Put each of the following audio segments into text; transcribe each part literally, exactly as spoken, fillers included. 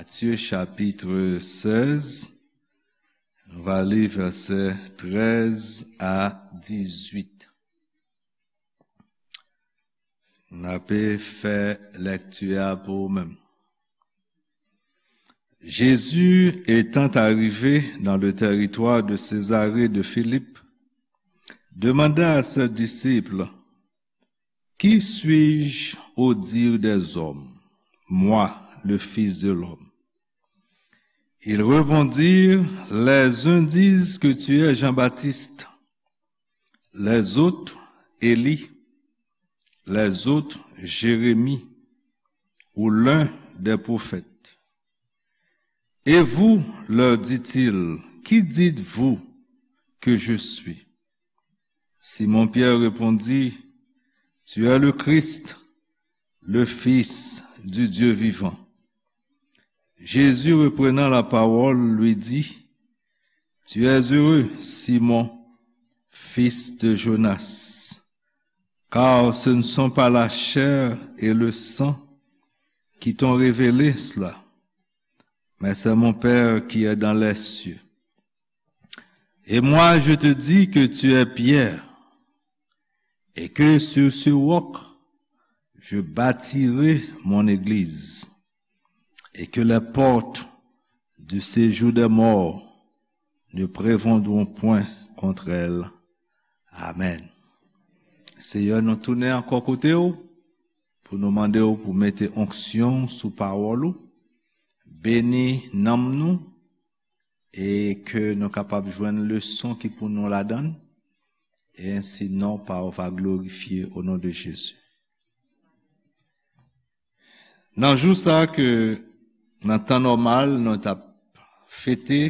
Matthieu chapitre seize, nou va li vèsè treize à dix-huit. N ape fè lèkti a pou ou menm. Jésus étant arrivé dans le territoire de Césarée de Philippe, demanda à ses disciples: Qui suis-je au dire des hommes, moi, le Fils de l'homme ? Ils répondirent: Les uns disent que tu es Jean-Baptiste, les autres Élie, les autres Jérémie ou l'un des prophètes. Et vous, leur dit-il, qui dites-vous que je suis ? Simon-Pierre répondit: Tu es le Christ, le Fils du Dieu vivant. Jésus, reprenant la parole, lui dit: Tu es heureux, Simon, fils de Jonas, car ce ne sont pas la chair et le sang qui t'ont révélé cela, mais c'est mon Père qui est dans les cieux. Et moi, je te dis que tu es Pierre, et que sur ce roc, je bâtirai mon église, et que les portes du séjour des morts ne prévaudront point contre elle. Amen. Seyè, nou tounen ankò kote w pou nou mande w pou mete onksyon sou pawòl ou, beni nanm nou, e ke nou kapab jwenn leson ki pou nou ladan l, e ensi non pa w va glorifye, o non de Jezi. Nan jou sa ke nan tan nòmal nou t ap fete,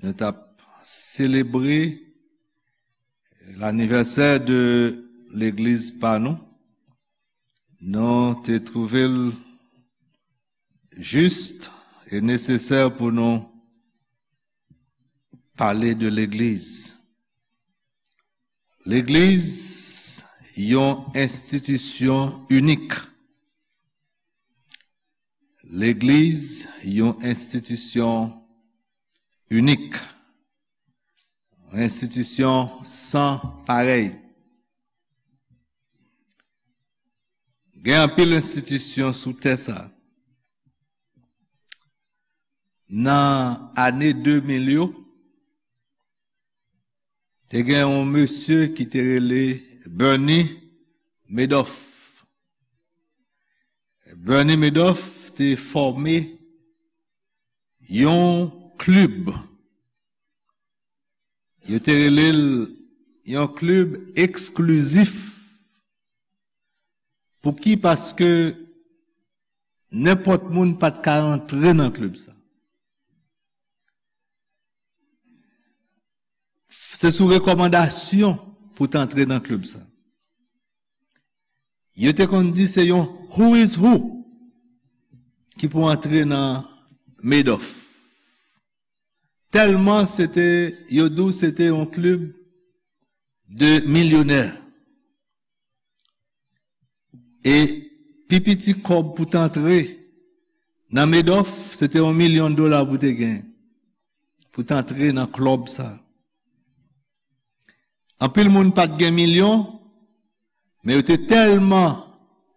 nou t ap selebre lanivèsè de legliz pa nou, nou te twouve l jis e nesesè pou nou pale de legliz. Legliz, yon enstitisyon inik. Legliz, yon enstitisyon inik. Yon enstitisyon san parèy. Gen anpil enstitisyon sou tè sa. Nan ane de mil yo, te gen yon mesye ki te rele Bernie Madoff. Bernie Madoff te fòme yon klib. Yo te rele l yon klib eksklizif. Pouki? Paske nenpòt moun pa t ka rantre nan klib sa. Se sou rekòmandasyon pou w t antre nan klib sa. Yo te konn di se yon who is who ki pou antre nan Madoff. Tèlman se te, yo di w se te yon klib de milyonè. E pi piti kòb pou t antre nan Madoff, se te yon milyon dola pou te gen, pou t antre nan klib sa. Anpil moun pa t gen milyon, men yo te tèlman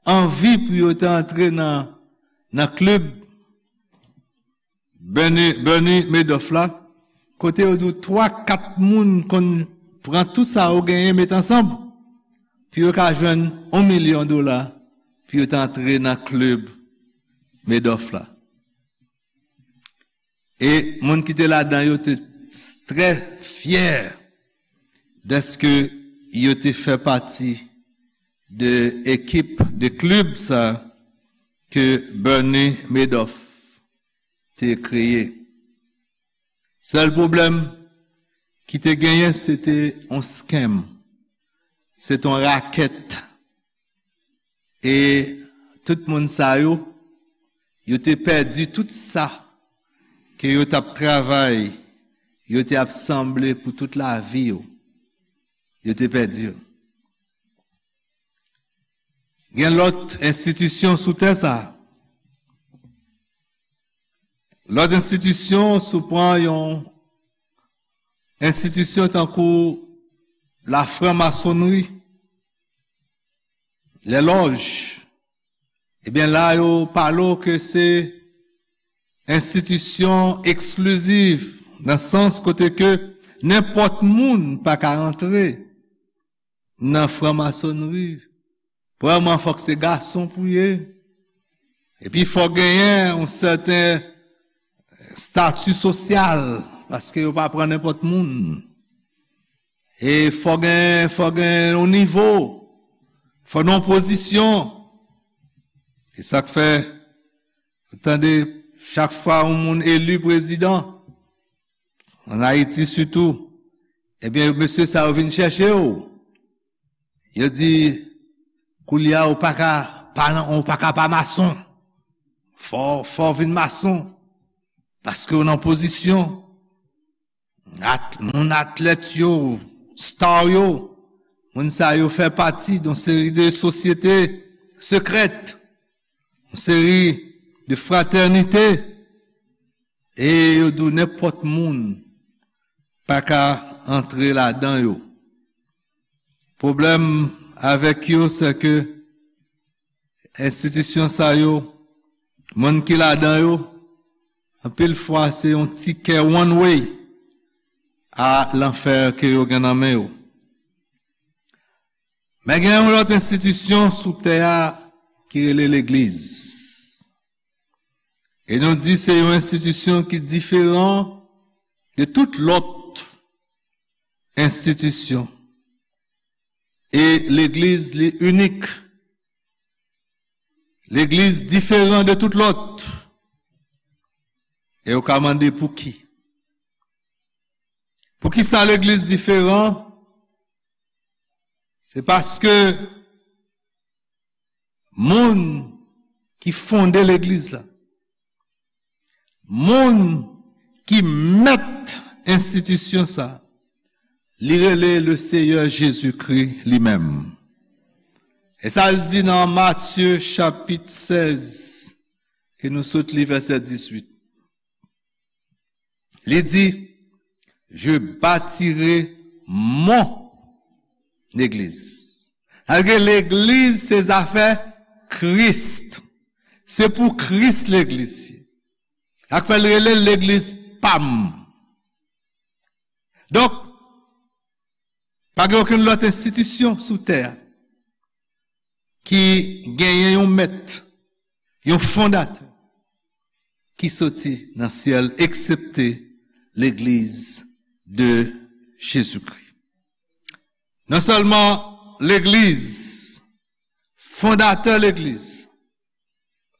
anvi pou yo te antre nan, nan klib Bernie, Bernie Madoff la, kote yo di w twa, kat moun konn pran tout sa yo genyen, met ansanm, pou yo ka jwenn yon milyon dola, pou yo te antre nan klib Madoff la. E moun ki te ladan yo te trè fyè dèske yo te fè pati de ekip, de klib sa ke Bernie Madoff te kreye. Sèl pwoblèm ki te genyen, se te yon scam, se te yon rakèt. E tout moun sa yo, yo te pèdi tout sa ke yo t ap travay, yo te ap sanble pou tout lavi yo. Yo te pèdi yo. Gen lòt enstitisyon sou tè sa. Lòt enstitisyon, si w pran yon enstitisyon tankou lafranmasonri, lè lòj, ebyen la yo pale w ke se enstitisyon eksklizif, nan sans kote ke nenpòt moun pa ka rantre nan franmasonri. Premyèman, fòk se gason pou ye. Epi fòk genyen yon sèten estati sosyal, paske yo pa pran nenpòt moun. E fòk gen, fòk gen yon nivo, fòk nan yon pozisyon. E sa k fè, ou tande, chak fwa yon moun eli prezidan, ann Ayiti sitou, ebyen, mesye sa yo vin chèche w. Yo di, koulye a, ou pa ka pa, ou pa ka pa mason. Fò, fò w vin mason. Paske w nan pozisyon. At-, moun atlèt yo, star yo, moun sa yo fè pati yon seri de sosyete sekrèt, yon seri de fratènite, e yo di w nenpòt moun pa ka antre ladan yo. Pwoblèm avèk yo, se ke enstitisyon sa yo, moun ki ladan yo, anpil fwa se yon tikè one way a lanfè ke yo gen nan men yo. Men gen yon lòt enstitisyon sou tè a ki rele legliz. E nou di se yon enstitisyon ki diferan de tout lòt enstitisyon. E legliz li inik. Legliz diferan de tout lòt. E ou ka mande pouki. Poukisa legliz diferan? Se paske moun ki fonde legliz la, moun ki mèt enstitisyon sa, li rele le Seyè Jezikri li menm. E sa l di nan Matye chapit sèz, ke nou sot li vèsè dizuit. Li di, "Je bâtirai mon église." Sa vle di legliz se zafè Kris. Se pou Kris legliz ye. Sa k fè l rele l legliz pa m. Donk, pa gen okenn lòt enstitisyon sou tè a ki genyen yon mèt, yon fondatè ki soti nan syèl, eksepte legliz de Jezikri. Non sèlman legliz, fondatè legliz,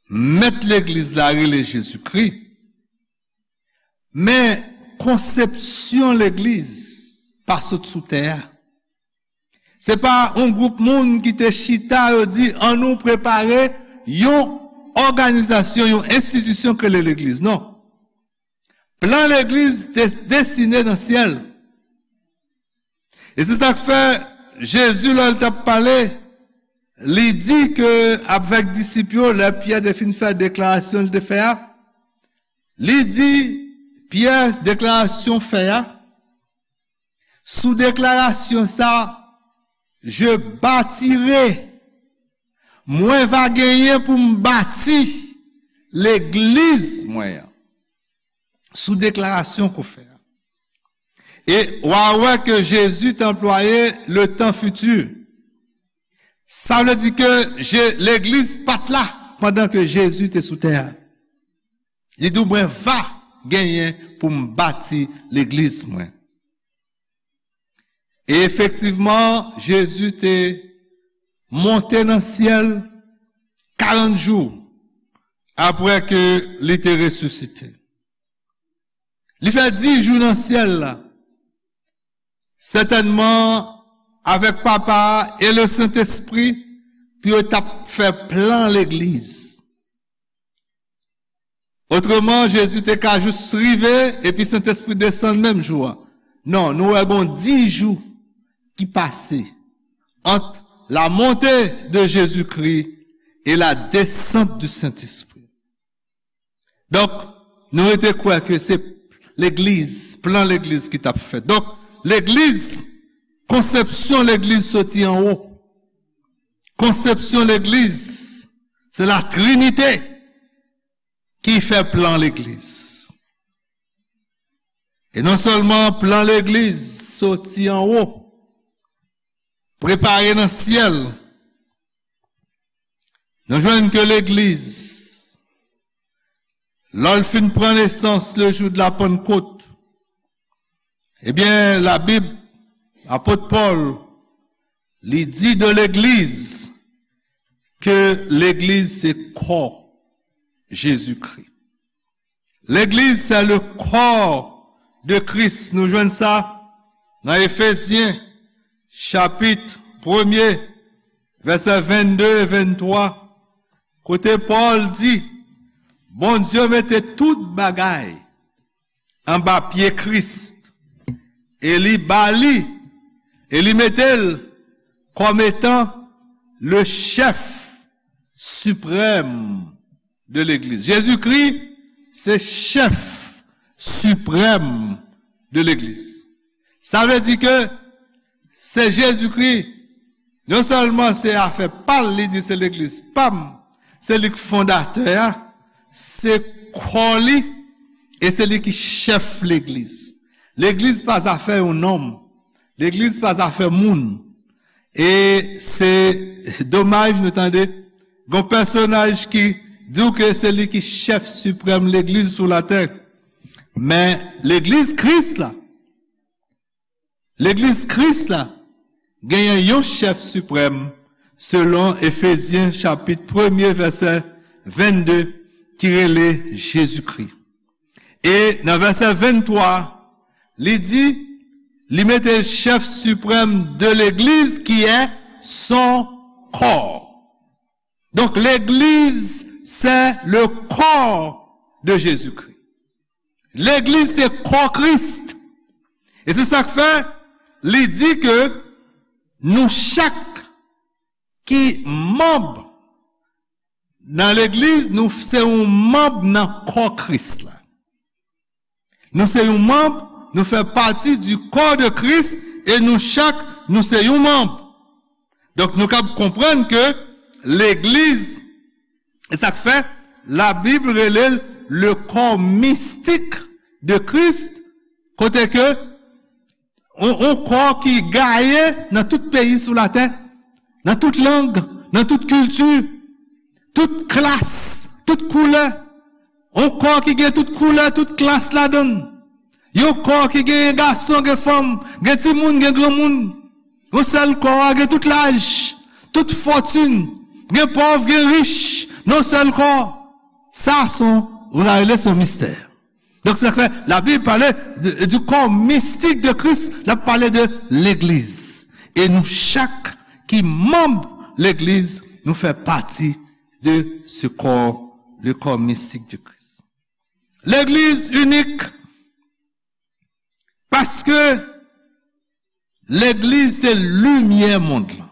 mèt legliz la rele Jezikri, men konsepsyon legliz pa sot sou tè a. Se pa yon gwoup moun ki te chita, yo di, "Ann nou prepare yon òganizasyon, yon enstitisyon k rele legliz." Non. Plan legliz te desine nan syèl. E se sa k fè Jezi, lè l t ap pale, li di ke avèk disip yo, lè Pyè te fin fè deklarasyon l te fè a, li di, Pyè, deklarasyon fè a, sou deklarasyon sa, "Je bâtirai", mwen va genyen pou m bati legliz mwen an. Sou deklarasyon ke w fè a. E w a wè ke Jezi te anplwaye le tan fiti. Sa vle di ke Je-, legliz pa t la pandan ke Jezi te sou tè a. Li di w, "Mwen va genyen pou m bati legliz mwen." E efektivman, Jezi te monte nan syèl karant jou apre ke li te resisite. Li fè dis jou nan syèl la, sètènman avèk Papa a e le Sentespri, pou yo t ap fè plan legliz. Otreman, Jezi te ka jis rive epi Sentespri desann menm jou a. Non, nou wè gon dis jou ki pase ant la montée de Jésus-Christ et la descente du Saint-Esprit. Donk, Nou rete kwè ke se legliz, plan legliz ki t ap fèt. Donk, legliz, konsepsyon legliz soti anwo. Konsepsyon legliz, se la Trinite ki fè plan legliz. E non sèlman plan legliz soti anwo, prepare nan syèl, nou jwenn ke legliz, lè l fin pran nesans le jou de la Pannkot, ebyen, Labib, apot Pòl, li di de legliz ke legliz se kò Jezikri. Legliz se le corps de Christ. Nou jwenn sa nan Efezyen, chapit premye, vèsè vennde e venntwa, kote Pòl di, Bondye mete tout bagay anba pye Kris, e li ba li, e li mete l kòm etan le chèf siprèm de legliz. Jezikri se chèf siprèm de legliz. Sa vle di ke se Jezikri, non sèlman se afè pa l, li di se legliz pa m, se li k fondatè a, se kò li, e se li ki chèf legliz. Legliz pa zafè yon nonm. Legliz pa zafè moun. E se domaj nou tande, gon pèsonaj ki di w ke se li ki chèf siprèm legliz sou latè. Men legliz Kris la, legliz Kris la, genyen yon chèf siprèm, selon Efezyen chapit premye vèsè vennde, ki rele Jezikri. E nan vèsè venntwa, li di, li mete chèf siprèm de legliz ki è son kò. Donk, legliz se le corps de Jésus-Christ. Legliz se kò Kris. E se sa k fè li di ke nou chak ki manm nan legliz, nou se yon manm nan kò Kris la. Nou se yon manm, nou fè pati du corps de Christ, e nou chak, nou se yon manm. Donk, nou kab konprann ke legliz, e sa k fè, Labib rele l le corps mystique de Christ, kote ke yon, yon kò ki gaye nan tout peyi sou latè, nan tout lang, nan tout kilti, tout klas, tout koulè. Yon kò ki gen tout koulè, tout klas ladan l. Yon kò ki gen gason, gen fanm, gen timoun, gen granmoun. Yon sèl kò a gen tout laj, tout fòtin, gen pòv, gen rich, nan yon sèl kò. Sa se yon, ou ta rele se yon mistè. Donk, sa fè, Labib pale de, du corps mystique de Christ, l ap pale de legliz. E nou chak ki manm legliz, nou fè pati de ce corps, le corps mystique de Christ. Legliz inik, paske legliz se limyè mond lan.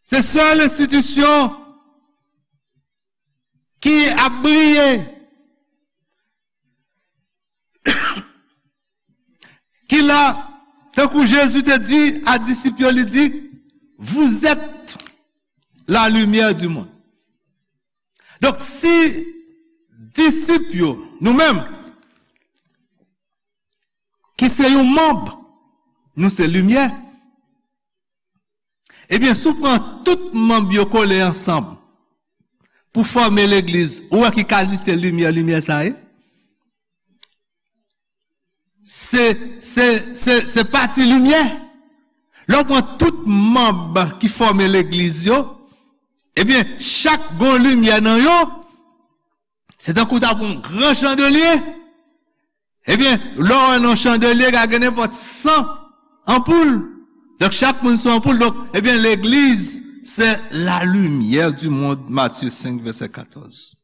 Se sèl enstitisyon ki ap briye, ki la, tankou Jezi te di a disip yo, li di, vous êtes la lumière du monde. Donk, si disip yo, nou menm, ki se yon manm, nou se limyè, ebyen, si w pran tout manm yo kole ansanm pou fòme legliz, ou wè ki kalite limyè, limyè sa ye? Se, se, se, se pati limyè. Lè w pran tout manm ki fòme legliz yo, ebyen, chak gon limyè nan yo, se tankou w ta pran yon gran chandelye. Ebyen, lè w wè nan chandelye, ka gen nenpòt san anpoul. Donk, chak moun se yon anpoul. Donk, ebyen, legliz, se la lumière du monde, Matthieu cinq, verset quatorze.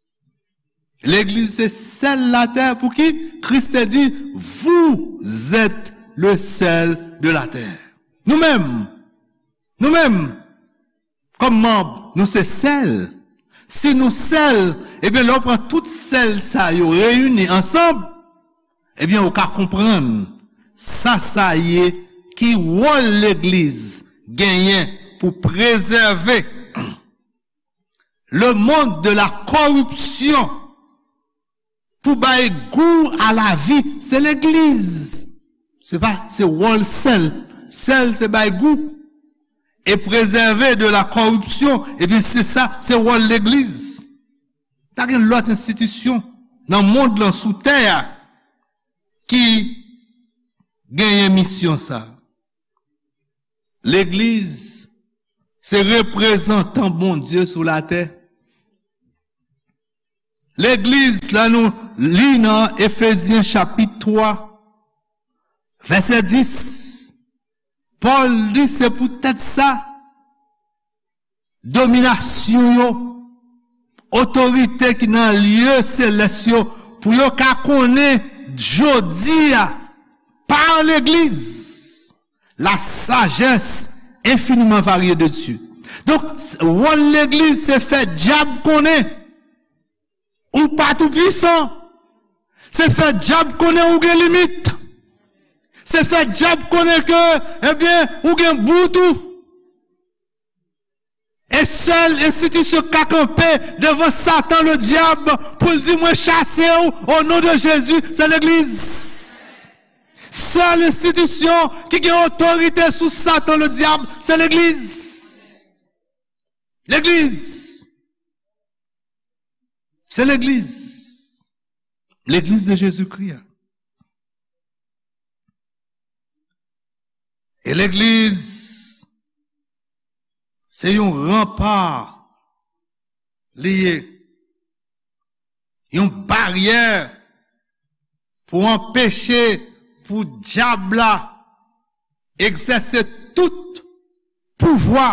Legliz se sèl latè pou ki Kris te di, vous êtes le sel de la terre. Nou menm, nou menm, kòm manm, nou se sèl. Si nou sèl, ebyen, lè w pran tout sèl sa yo reyini ansanm, ebyen, ou ka konprann sa sa ye, ki wòl legliz genyen pou prezève le monde de la corruption, pou bay gou a lavi, se legliz. Se pa, se wòl sèl. Sèl se bay gou. E prezève de la corruption, ebyen, se sa, se wòl legliz. Pa gen lòt enstitisyon nan mond lan, sou tè a, ki genyen misyon sa. Legliz se reprezantan Bondye sou latè. Legliz la, nou li nan Efezyen chapit twa, vèsè dis, Pòl di se poutèt sa, dominasyon yo, otorite ki nan lye selès yo, pou yo ka konnen jodi a, pa legliz, la sagesse infiniment variée de Dieu. Donk, wòl legliz se fè dyab konnen ou pa tou pwisan. Se fè dyab konnen ou gen limit. Se fè dyab konnen ke, ebyen, ou gen bout ou. E sèl enstitisyon k ka kanpe devan Satan ledyab pou l di, "Mwen chase w o non de Jezi," se legliz. Sèl enstitisyon ki gen otorite sou Satan ledyab, se legliz. Legliz. Se legliz. Legliz de Jezikri a. E legliz, se yon ranpa li ye. Yon baryè pou anpeche pou dyab la egzèse tout pouvwa,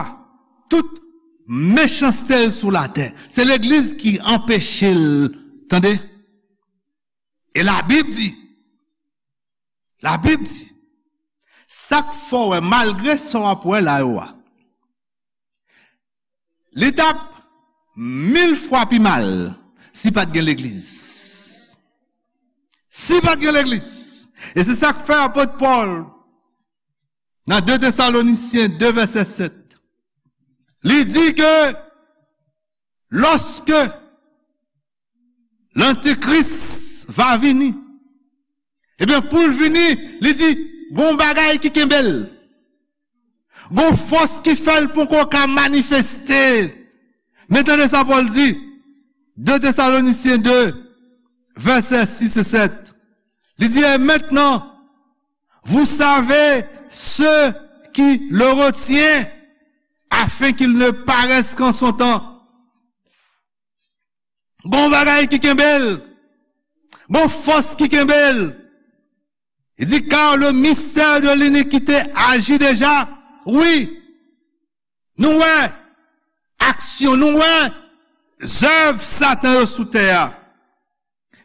tout mechanste l sou latè. Se legliz ki anpeche l, tande. E Labib di, Labib di, sa k fè w wè, malgre sa w ap wè la yo a, li t ap mil fwa pi mal si pa t gen legliz. Si pa t gen legliz. E se sa k fè apot Pòl, nan de Tesalonisyen de vèsè sèt, li di ke lòske Lantikris va vini, ebyen, pou l vini, li di, gon bagay ki kenbe l. Gon fòs ki fè l poko ka manifeste. Men tande sa Pòl di, de Tesalonisyen de, vèsè sis e sèt. Li di, et maintenant, vous savez ce qui le retient, afin qu'il ne paraisse qu'en son temps. Gon bagay ki kenbe l. Gon fòs ki kenbe l. Li di, car le mystère de l'iniquité agit déjà. Wi. Nou wè aksyon, nou wè zèv Satan yo sou tè a.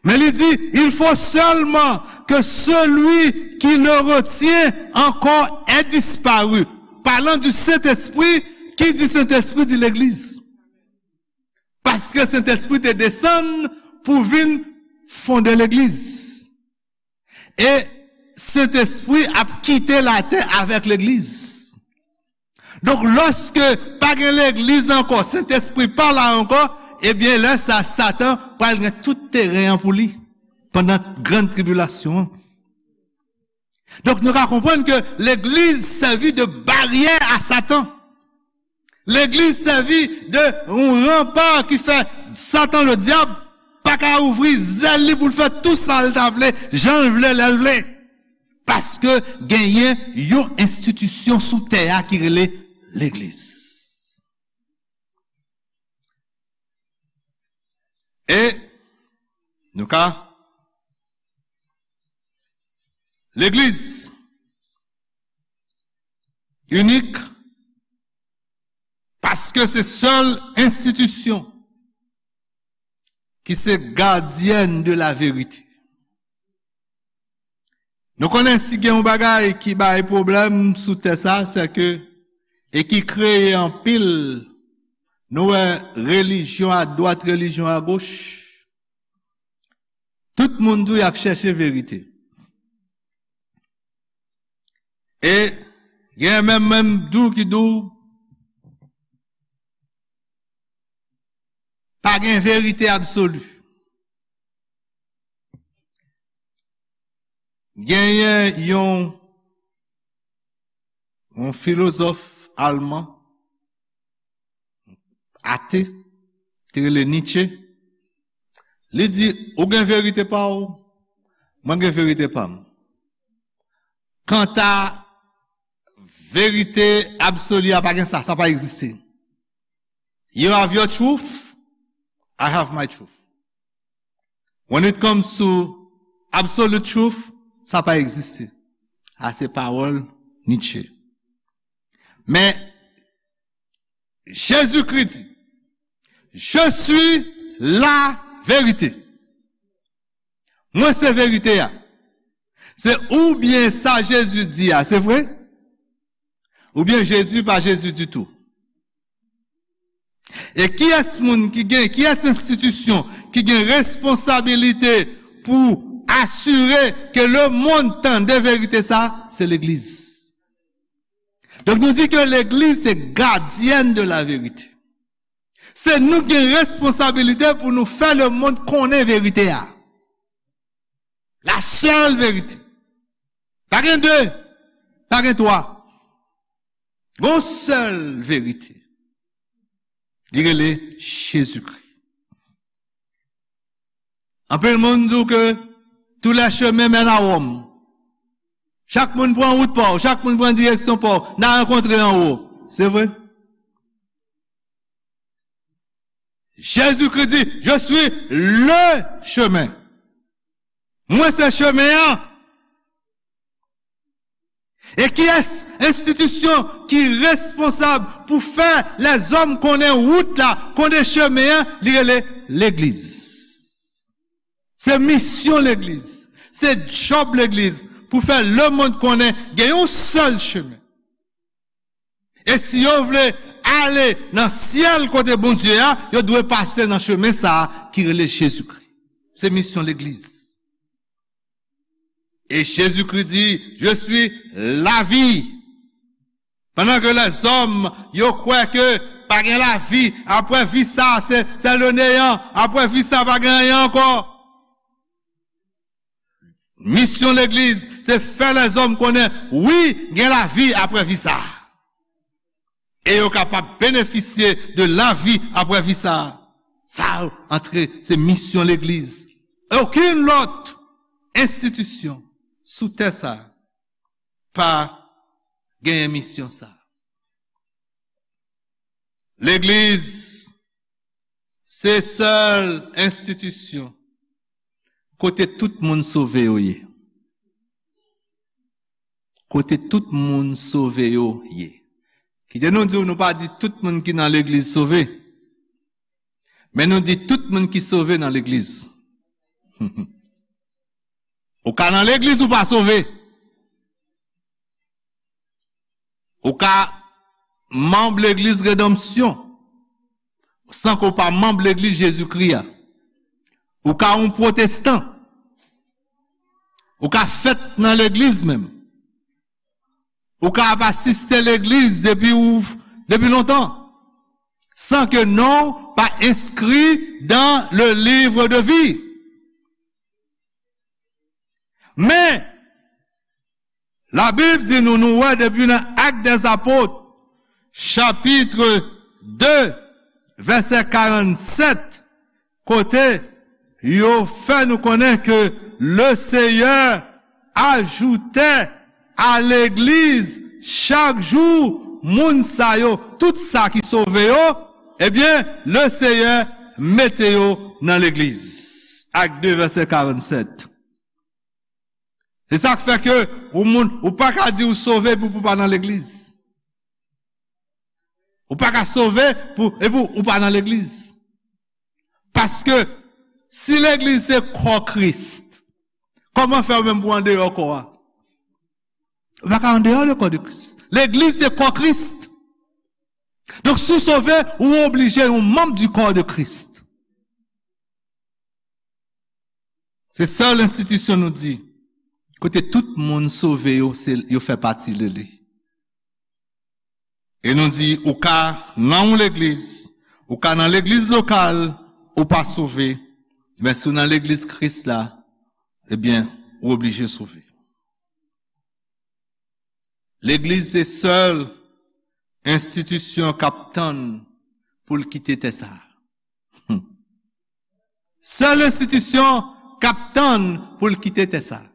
Men li di, il faut seulement que celui qui le retient encore ait disparu. Parlant du Saint-Esprit, ki di Sentespri di legliz. Paske Sentespri te desann pou vin fonde legliz. E Sentespri ap kite latè avèk legliz. Donk, lòske pa gen legliz ankò, Sentespri pa la ankò, ebyen, lè sa, Satan pral gen tout teren an pou li pandan grann tribilasyon an. Donk, nou ka konprann ke legliz sèvi de baryè a Satan. Legliz sèvi de yon ranpa ki fè Satan, ledyab, pa ka ouvri zèl li pou l fè tou sa l ta vle, jan l vle, lè l vle. Paske genyen yon enstitisyon sou tè a ki rele legliz. E nou ka, legliz inik, paske se sèl enstitisyon ki se gadyèn de la verite. Nou konnen si gen yon bagay ki bay pwoblèm sou tè sa, se ke, e ki kreye anpil Nou wè relijyon adwat, relijyon agoch. Tout moun di w y ap chèche verite. E gen menm, menm di w ki di w pa gen verite absoli. Genyen yon, yon filozòf alman, ate, te rele Nietzsche. Li di, ou gen verite pa w, mwen gen verite pa m. Kanta verite absoli a, pa gen sa, sa pa egziste. You have your truth, I have my truth. When it comes to absolute truth, sa pa egziste. A se pawòl Nietzsche. Men, Jezikri di, je suis la vérité. Mwen se verite a. Se oubyen sa Jezi di a, se vre? Oubyen Jezi pa Jezi ditou? E kiyès moun ki gen, kiyès enstitisyon ki gen responsabilite pou asire ke lemonn tande verite sa? Se legliz. Donk nou di ke legliz se gadyèn de la verite. Se nou ki gen responsabilite pou nou fè lemonn konnen verite a. La sèl verite. Pa gen de, pa gen twa. Gon sèl verite. Li rele Jezikri. Anpil moun di w ke tous les chemins mènent à Rome. Chak moun pran wout pa w, chak moun pran direksyon pa w, n a rankontre anwo. Se vre? Jezikri di, je suis le chemin. Mwen se chemen an. E kiyès enstitisyon ki responsab pou fè lèzòm konnen wout la, konnen chemen an? Li rele legliz. Se misyon legliz. Se djòb legliz pou fè lemonn konnen gen yon sèl chemen. E si yo vle ale nan syèl kote Bondye a, yo dwe pase nan chemen sa a ki rele Jezikri. Se misyon legliz. E Jezikri di, je suis la vie. Pandan ke lèzòm, yo kwè ke pa gen lavi, apre vi sa, se, se le néant, apre vi sa, pa gen anyen ankò. Misyon legliz, se fè lèzòm konnen, wi, gen lavi apre vi sa. E yo kapab benefisye de lavi apre vi sa. Sa antre, se misyon legliz. Okenn lòt enstitisyon sou tè sa pa genyen misyon sa. Legliz, se sèl enstitisyon kote tout moun sove yo ye. Kote tout moun sove yo ye. Kite nou di w, nou pa di tout moun ki nan legliz sove. Men nou di tout moun ki sove nan legliz. Ou ka nan legliz, ou pa sove. Ou ka manm legliz Redanmsyon san ke w pa manm legliz Jezikri a. Ou ka yon pwotestan. Ou ka fèt nan legliz menm. Ou ka ap asiste legliz depi ou, depi lontan, san ke non w pa enskri dans le livre de vie. Men, Labib di nou, nou wè depi nan Actes des Apôtres, chapitre deux, vèsè karannsèt, kote yo fè nou konnen ke le Seigneur ajoutait à l'église chaque jour moun sa yo, tout sa ki sove yo, ebyen, le Seigneur mete yo nan legliz. Actes deux, vèsè karannsèt. Se sa k fè ke ou moun, ou pa ka di ou sove pou, pou pa nan legliz. Ou pa ka sove pou, epi ou pa nan legliz. Paske si legliz se kò Kris, kòman fè ou menm pou andeyò kò a? Ou pa ka andeyò de kò de Kris. Legliz se kò Kris. Donk, si w sove, ou oblije yon manm di kò de Kris. Se sèl enstitisyon nou di, kote tout moun sove yo, se, yo fè pati de li. E nou di, ou ka nan yon legliz, ou ka nan legliz lokal, ou pa sove, men si w nan legliz Kris la, ebyen, ou oblije sove. Legliz se sèl enstitisyon k ap tann pou l kite tè sa a. Sèl enstitisyon k ap tann pou l kite tè sa a.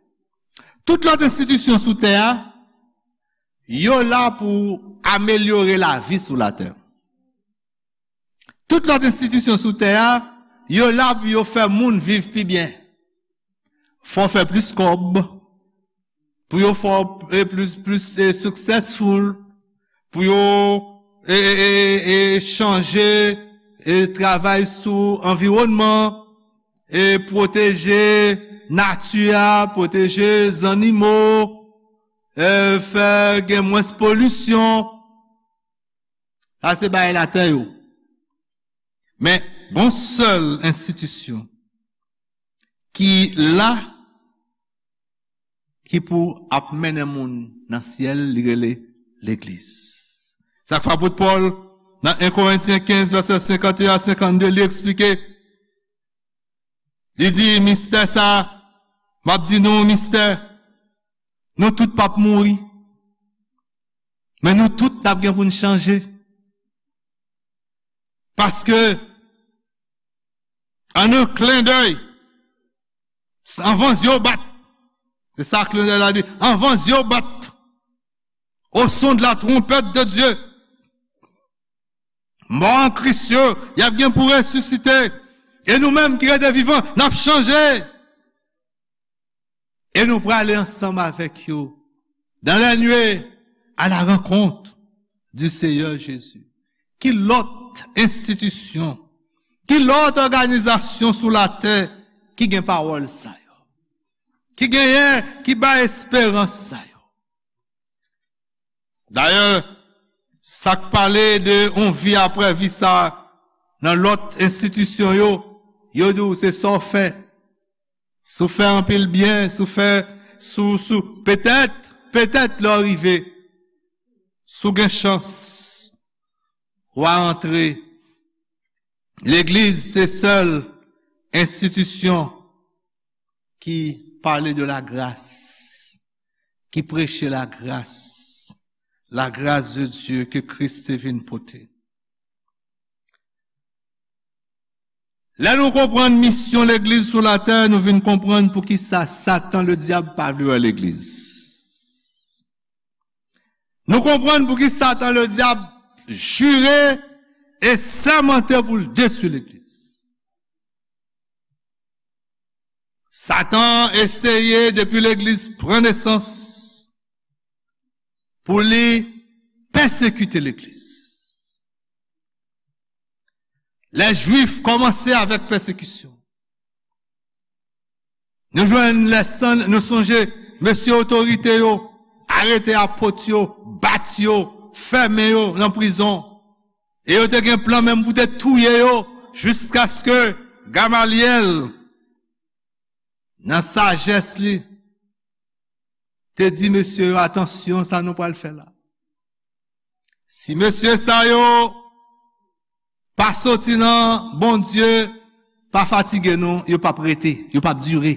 Tout lòt enstitisyon sou tè a, yo la pou amelyore lavi sou latè. Tout lòt enstitisyon sou tè a, yo la pou yo fè moun viv pi byen. Fò fè plis kòb, pou yo fè, e, plis, plis, e, successful, pou yo, e, e, e, e, chanje, e, travay sou anviwònman, e, pwoteje nati a, pwoteje zannimo, e, fè gen mwens polisyon. Sa se bagay latè yo. Men, gon sèl enstitisyon ki la, ki pou ap mennen moun nan syèl, li rele legliz. Sa k fè apot Pòl, nan en Korentyen kenz, vèsè senkann e en a senkann de, li eksplike, li di, mistè sa, m ap di nou yon mistè, nou tout p ap mouri, men nou tout n ap gen pou n chanje. Paske, an un clin d'œil, anvan zye w bat, se sa clin d'œil la di, anvan zye w bat, au son de la trompette de Dieu, mò an Kris yo, y ap gen pou resisite, e nou menm ki rete vivan, n ap chanje. E nou prale ansanm avèk yo dans les nuées à la rencontre du Seigneur Jésus. Ki lòt enstitisyon, ki lòt òganizasyon sou latè ki gen pawòl sa yo? Ki genyen, ki bay esperans sa yo? Dayè, sa k pale de yon vi apre vi sa nan lòt enstitisyon yo, yo di w se sa w fè. Si w fè anpil byen, si w fè, si w, si w, petèt, petèt lè w rive, si w gen chans, w a antre. Legliz se sèl enstitisyon ki pale de la grâce, ki preche la grâce, la grâce de Dieu ke Kris te vin pote. Lè nou konprann misyon legliz sou latè, nou vin konprann poukisa Satan ledyab pa vle wè legliz. Nou konprann pouki Satan ledyab jire e sèmante pou l detwi legliz. Satan eseye depi legliz pran nesans pou li pèsekite legliz. Lè Jwif kòmanse avèk pèsekisyon, nou jwenn lè san, nou sonje mesye otorite yo arete apot yo, bat yo, fèmen yo nan prizon. E yo te gen plan menm pou te touye yo jiskaske Gamalyèl, nan sajès li, te di mesye yo, atansyon sa nou pral fè la. Si mesye sa yo pa soti nan Bondye, pa fatige non, yo p ap rete, yo p ap dire.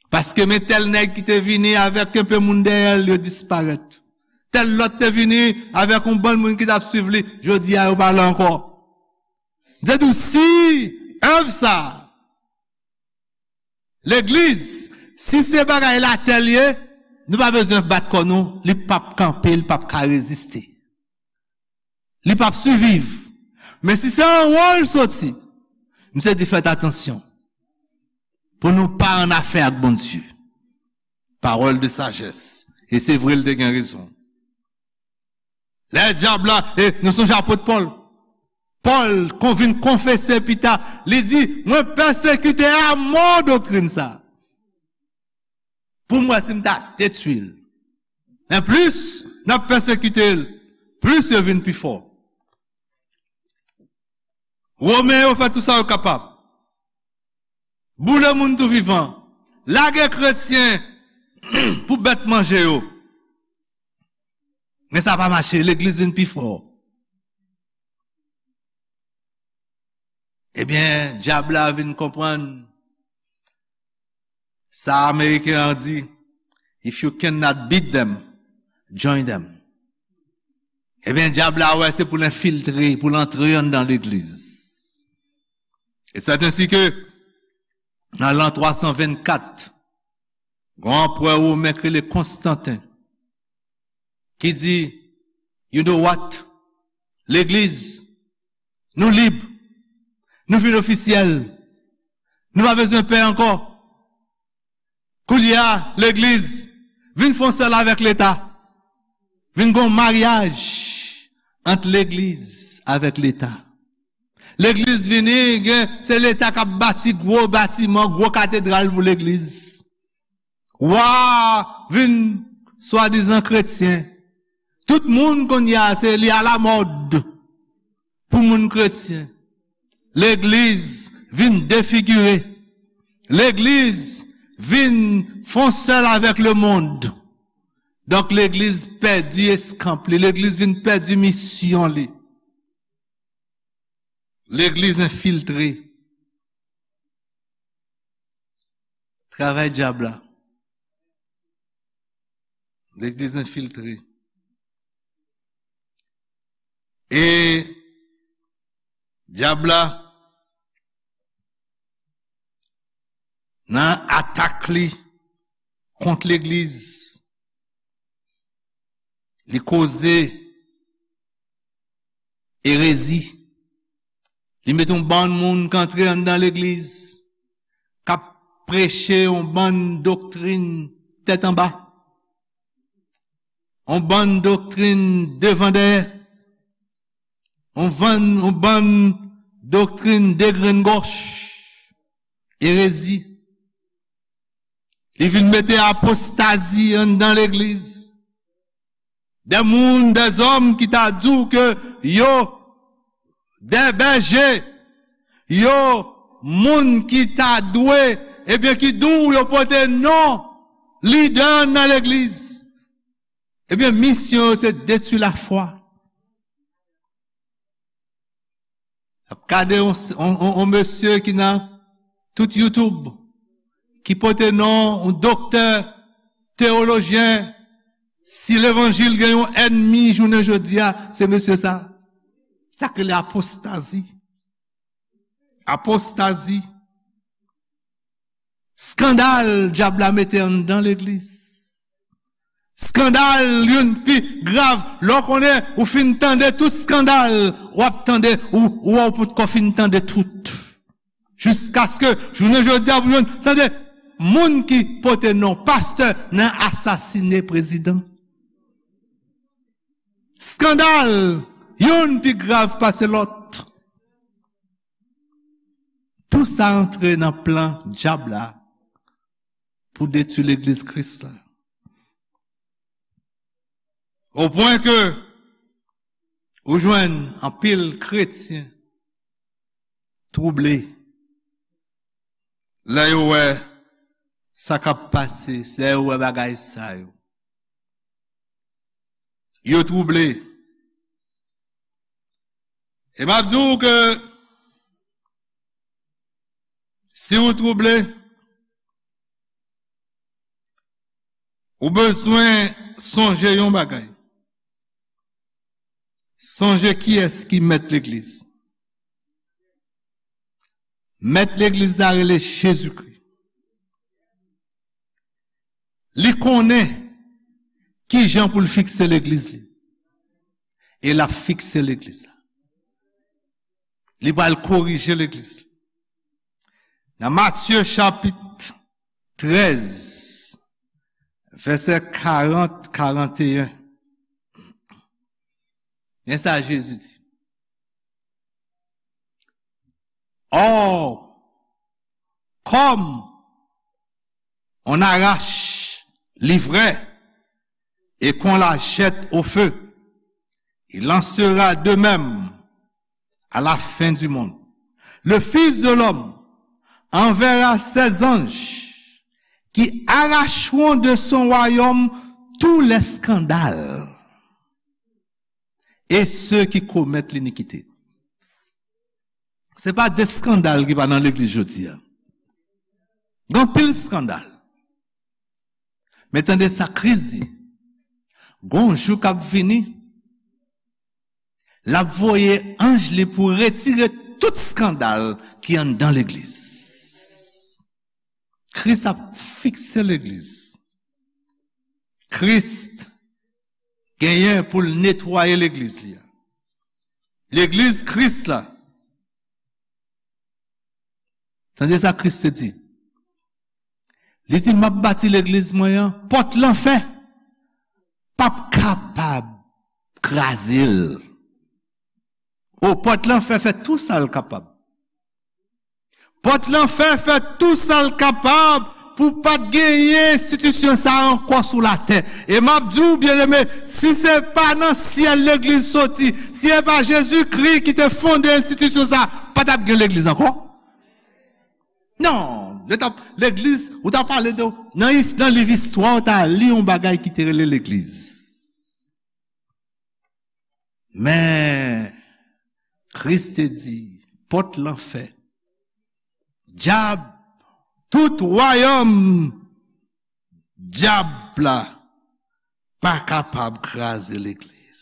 Paske men tèl nèg ki te vini avèk enpe moun dèyè l, yo disparèt. Tèl lòt te vini avèk yon bann moun ki t ap swiv li, jodi a yo pa la ankò. M te di w, si èv sa, legliz, si se bagay latè l ye, nou pa bezwen bat kò nou, li p ap kanpe, li p ap ka reziste. Li p ap siviv. Men si se anwo l soti, misye di fèt atansyon pou nou pa annafè ak Bondye. Parole de sagesse. E se vre, l te gen rezon. Lè dyab la, e nou sonje apot Pòl. Pòl kon vin konfese pita, li di, mwen pèsekite a mò doktrin sa. Pou m wè si m ta detwi l. Men plis n ap pèsekite l, plis yo vin pi fò. Women yo fè tout sa yo kapab. Boule moun tou vivan. Lage kretyen pou bèt manje yo. Men sa pa mache, legliz vin pi fò. Ebyen, dyab la vin konprann sa Ameriken an di, "If you cannot beat them, join them." Ebyen, dyab la wè se pou l enfiltre, pou l antre anndan legliz. E sèt ensi ke, nan lan twa san vennkat, gon anperè women ki rele Konstanten, ki di, "You know what? Legliz, nou lib, nou vin ofisyèl, nou pa bezwen pè ankò." Koulye a, legliz vin fè yon sèl avèk Leta. Vin gon maryaj ant legliz avèk Leta. Legliz vini, gen, se Leta k ap bati gwo batiman, gwo katedral pou legliz. Wa vin swadizan kretyen. Tout moun kounye a, se li alamòd pou moun kretyen. Legliz vin defigire. Legliz vin fè yon sèl avèk lemonn. Donk, legliz pèdi eskanp li. Legliz vin pèdi misyon li. Legliz enfiltre. Travay dyab la. Legliz enfiltre. E dyab la, nan atak li kont legliz, li koze erezi. Li mete yon bann moun k antre anndan legliz, k ap preche yon bann doktrin tèt anba, yon bann doktrin devan dèyè, yon bann, yon bann doktrin degrenngòch, erezi. Li vin mete apostazi anndan legliz. De moun, de zòm ki ta di w ke yo de bèje, yo moun ki ta dwe, ebyen, ki di w yo pote non lidè nan legliz. Ebyen, misyon yo se detwi lafwa. Ap gade yon, yon, yon, yon mesye ki nan tout YouTube, ki pote non yon doktè teyolojyen. Si levanjil gen yon ènmi jounen jodi a, se mesye sa. Sa k rele apostazi. Apostazi. Skandal dyab la mete anndan legliz. Skandal youn pi grav. Lè w konnen ou fin tande tout skandal, w ap tande, ou, ou wè w potko fin tande tout. Jiskaske jounen jodi a, pou jwenn, tande, moun ki pote non pastè nan asasine prezidan. Skandal, youn pi grav pase lòt. Tou sa antre nan plan dyab la pou detwi legliz Kris la. O pwen ke ou jwenn anpil kretyen twouble lè yo wè sa k ap pase, lè yo wè bagay sa yo. Yo twouble. E m ap di w ke si w twouble, ou bezwen sonje yon bagay. Sonje kiyès ki mèt legliz. Mèt legliz la rele Jezikri. Li konnen ki jan pou l fikse legliz li. E l ap fikse legliz la. Li pral korije legliz. Nan Matye chapit trèz, vèsè karant, karanteyen, men sa Jezi di. Or, comme on arrache l'ivraie et qu'on la jette au feu, il en sera de même à la fin du monde. Le Fils de l'homme enverra ses anges qui arracheront de son royaume tous les scandales et ceux qui commettent l'iniquité. Se pa de eskandal ki pa nan legliz jodi a. Gen anpil eskandal. Men tande sa Kris di. Gon jou k ap vini, l ap voye anj li pou retire tout eskandal ki anndan legliz. Kris ap fikse legliz. Kris genyen pou l netwaye legliz li a. Legliz Kris la. Tande sa Kris te di. Li di, "M ap bati legliz mwen an, pòt lanfè p ap kapab kraze l." O, pòt lanfè fè tou sa l kapab. Pòt lanfè fè tou sa l kapab pou pa t genyen enstitisyon sa a ankò sou latè. E m ap di w, byeneme, si se pa nan syèl legliz soti, si se pa Jezikri ki te fonde enstitisyon sa a, pa t ap gen legliz ankò. Non, lè t ap, legliz, ou ta pale de, nan, is- nan liv istwa, ou ta li yon bagay ki te rele legliz. Men, Kris te di, pòt lanfè, dyab, tout wayòm dyab la pa kapab kraze legliz.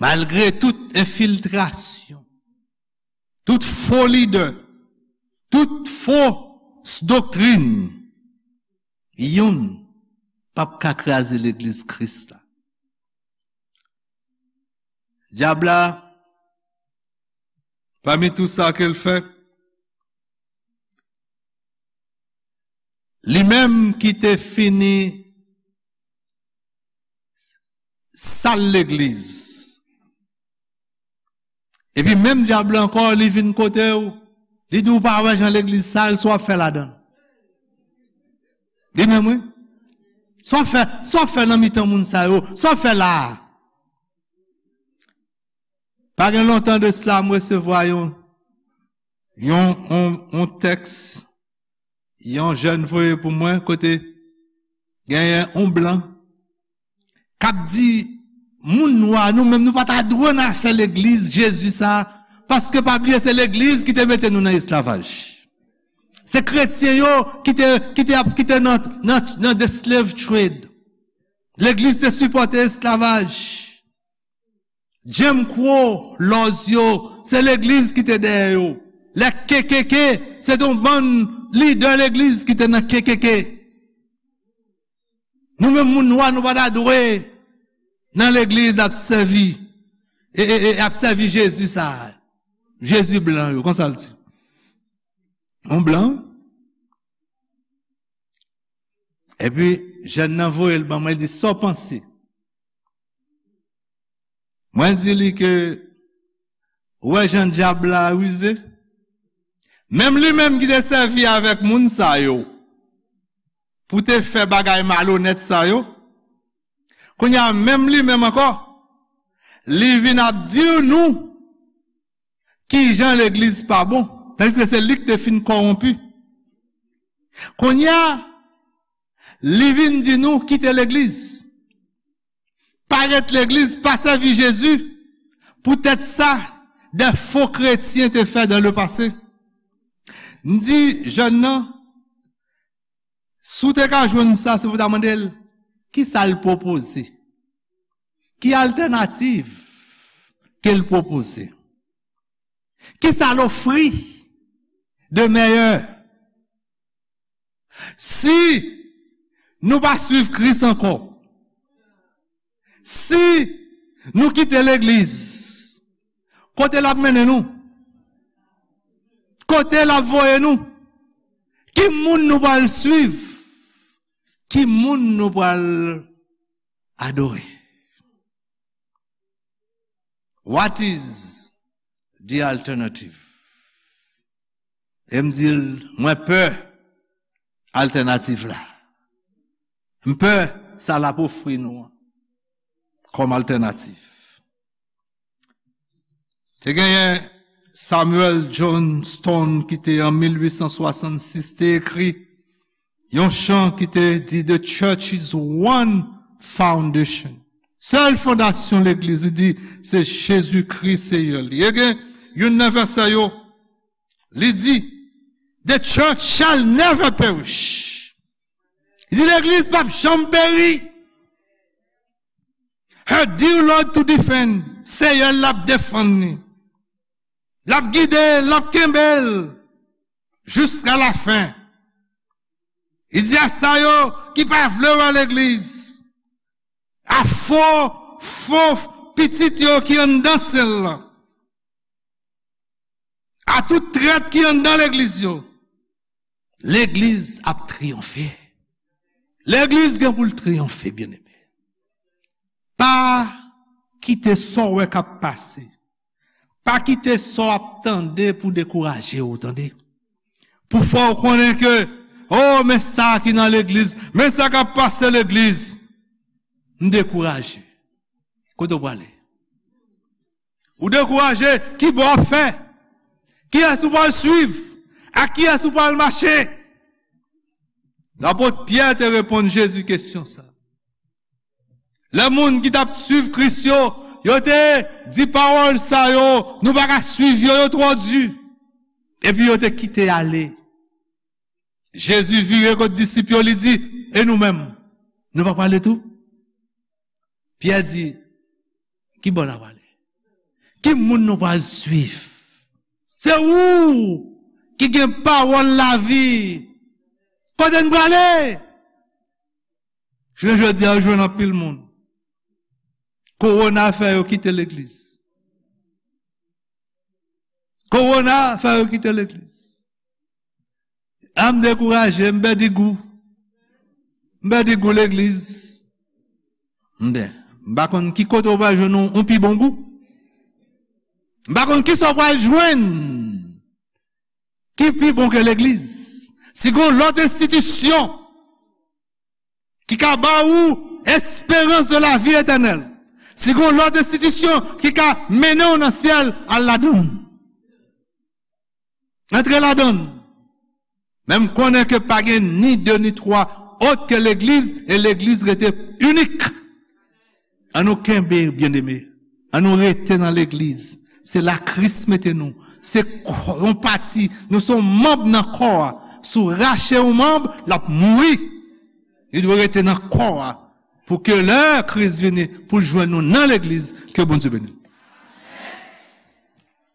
Malgre tout enfiltrasyon, tout fo lidè, tout fo doktrin, youn p ap ka kraze legliz Kris la. Dyab la, pami tou sa ke l fè, li menm ki te fini sal legliz. Epi menm dyab la ankò, li vin kote w, li di w pa wè jan legliz sal, sa w ap fè ladan l. Li menm, wi. Sa w ap fè, sa w ap fè nan mitan moun sa yo, sa w ap fè la a. Pa gen lontan de sila, m resevwa yon, yon, yon, yon tèks, yon jèn voye pou mwen, kote genyen yon blan k ap di, moun nwa, nou menm, nou pa ta dwe nan afè legliz Jezi sa, paske pa bliye se legliz ki te mete nou nan esklavaj. Se kretyen yo ki te, ki te ap, ki te nan, nan, nan the slave trade. Legliz te sipòte esklavaj. Jim Crow, laws yo, se legliz ki te dèyè yo. Lè K K K, se te yon bann lidè legliz ki te nan K K K. Nou menm moun nwa, nou pa ta dwe nan legliz ap sèvi, e, e, e ap sèvi Jezi sa. Jezi blan yo, konsa l di. Yon blan. Epi, jèn nan voye l ban mwen, li di, "Sa w panse?" Mwen di li ke, ou wè jan dyab la rize? Menm li menm ki te sèvi avèk moun sa yo pou te fè bagay malonèt sa yo, kounye a menm li menm ankò, li vin ap di nou kijan legliz pa bon, tandiske se li ki te fin kòwonpi. Kounye a, li vin di nou kite legliz. Pa ret legliz, pa sèvi Jezi. Poutèt sa, de fo kretyen te fè dans le passé. M di jèn nan, si w te ka jwenn sa, se pou w ta mande l, kisa l pwopoze? Ki altènativ ke l pwopoze? Kisa l ofri de meyè? Si nou pa swiv Kris ankò, si nou kite legliz, kote l ap mennen nou? Kote l ap voye nou? Ki moun nou pral swiv? Ki moun nou pral adore? What is the alternative? E m di l, mwen pè altènativ la. M pè sa l ap ofri nou an kòm altènativ. Te genyen Samuel Johnston ki te an mil uit san swasannsis te ekri yon chan ki te di, "The church is one foundation." Sèl fondasyon legliz, li di, se Jezikri Seyè li. E gen youn nan vèsè yo, li di, "The church shall never perish." Li di, "Legliz p ap janm peri." Her dear Lord to defend. Seyè l ap defann li. L ap gide l, l ap kenbe l jiska lafen. Li di a sa yo ki pa vle wè legliz, a fo, fo pitit yo ki anndan sèl la, a tout trèt ki anndan legliz yo, legliz ap triyonfe. Legliz gen pou l triyonfe, byeneme. Pa kite sa w wè k ap pase, pa kite sa w ap tande pou dekouraje w, tande. Pou fè w konnen ke, o, men sa ki nan legliz, men sa k ap pase legliz, m dekouraje. Kote w prale? Ou dekouraje, ki bò w ap fè? Kiyès ou pral swiv? Ak kiyès ou pral mache? Lapot Pyè te reponn Jezi kesyon sa. Lè moun ki t ap swiv Kris yo, yo te di pawòl sa yo, "Nou pa ka swiv yo, yo twò di." Epi yo te kite ale. Jezi vire kot disip yo, li di, "E nou menm, nou pa prale tou?" Pyè di, "Ki bò n a prale? Ki moun nou pral swiv? Se ou ki gen pawòl lavi. Kote n prale?" Jounen jodi a, ou jwenn anpil moun, kowona fè yo kite legliz. Kowona fè yo kite legliz. A, m dekouraje, m pèdi gou. M pèdi gou legliz. M pa konn ki kote w pral jwenn yon, yon pi bon gou. M pa konn ki sa w pral jwenn ki pi bon ke legliz. Si gen yon lòt enstitisyon ki ka ba ou esperans de la vi etènèl, si gen yon lòt enstitisyon ki ka mennen w nan syèl, al ladan l. Antre ladan l. Men m konnen ke pa gen ni de ni twa òt ke legliz, e legliz rete inik. Ann nou kenbe, byeneme. Ann nou rete nan legliz. Se la Kris mete nou. Se kò, yon pati, nou se yon manm nan kò a. Si w rache yon manm, l ap mouri. Li dwe rete nan kò a. Pou ke lè Kris vini, pou l jwenn nou nan legliz, ke Bondye beni.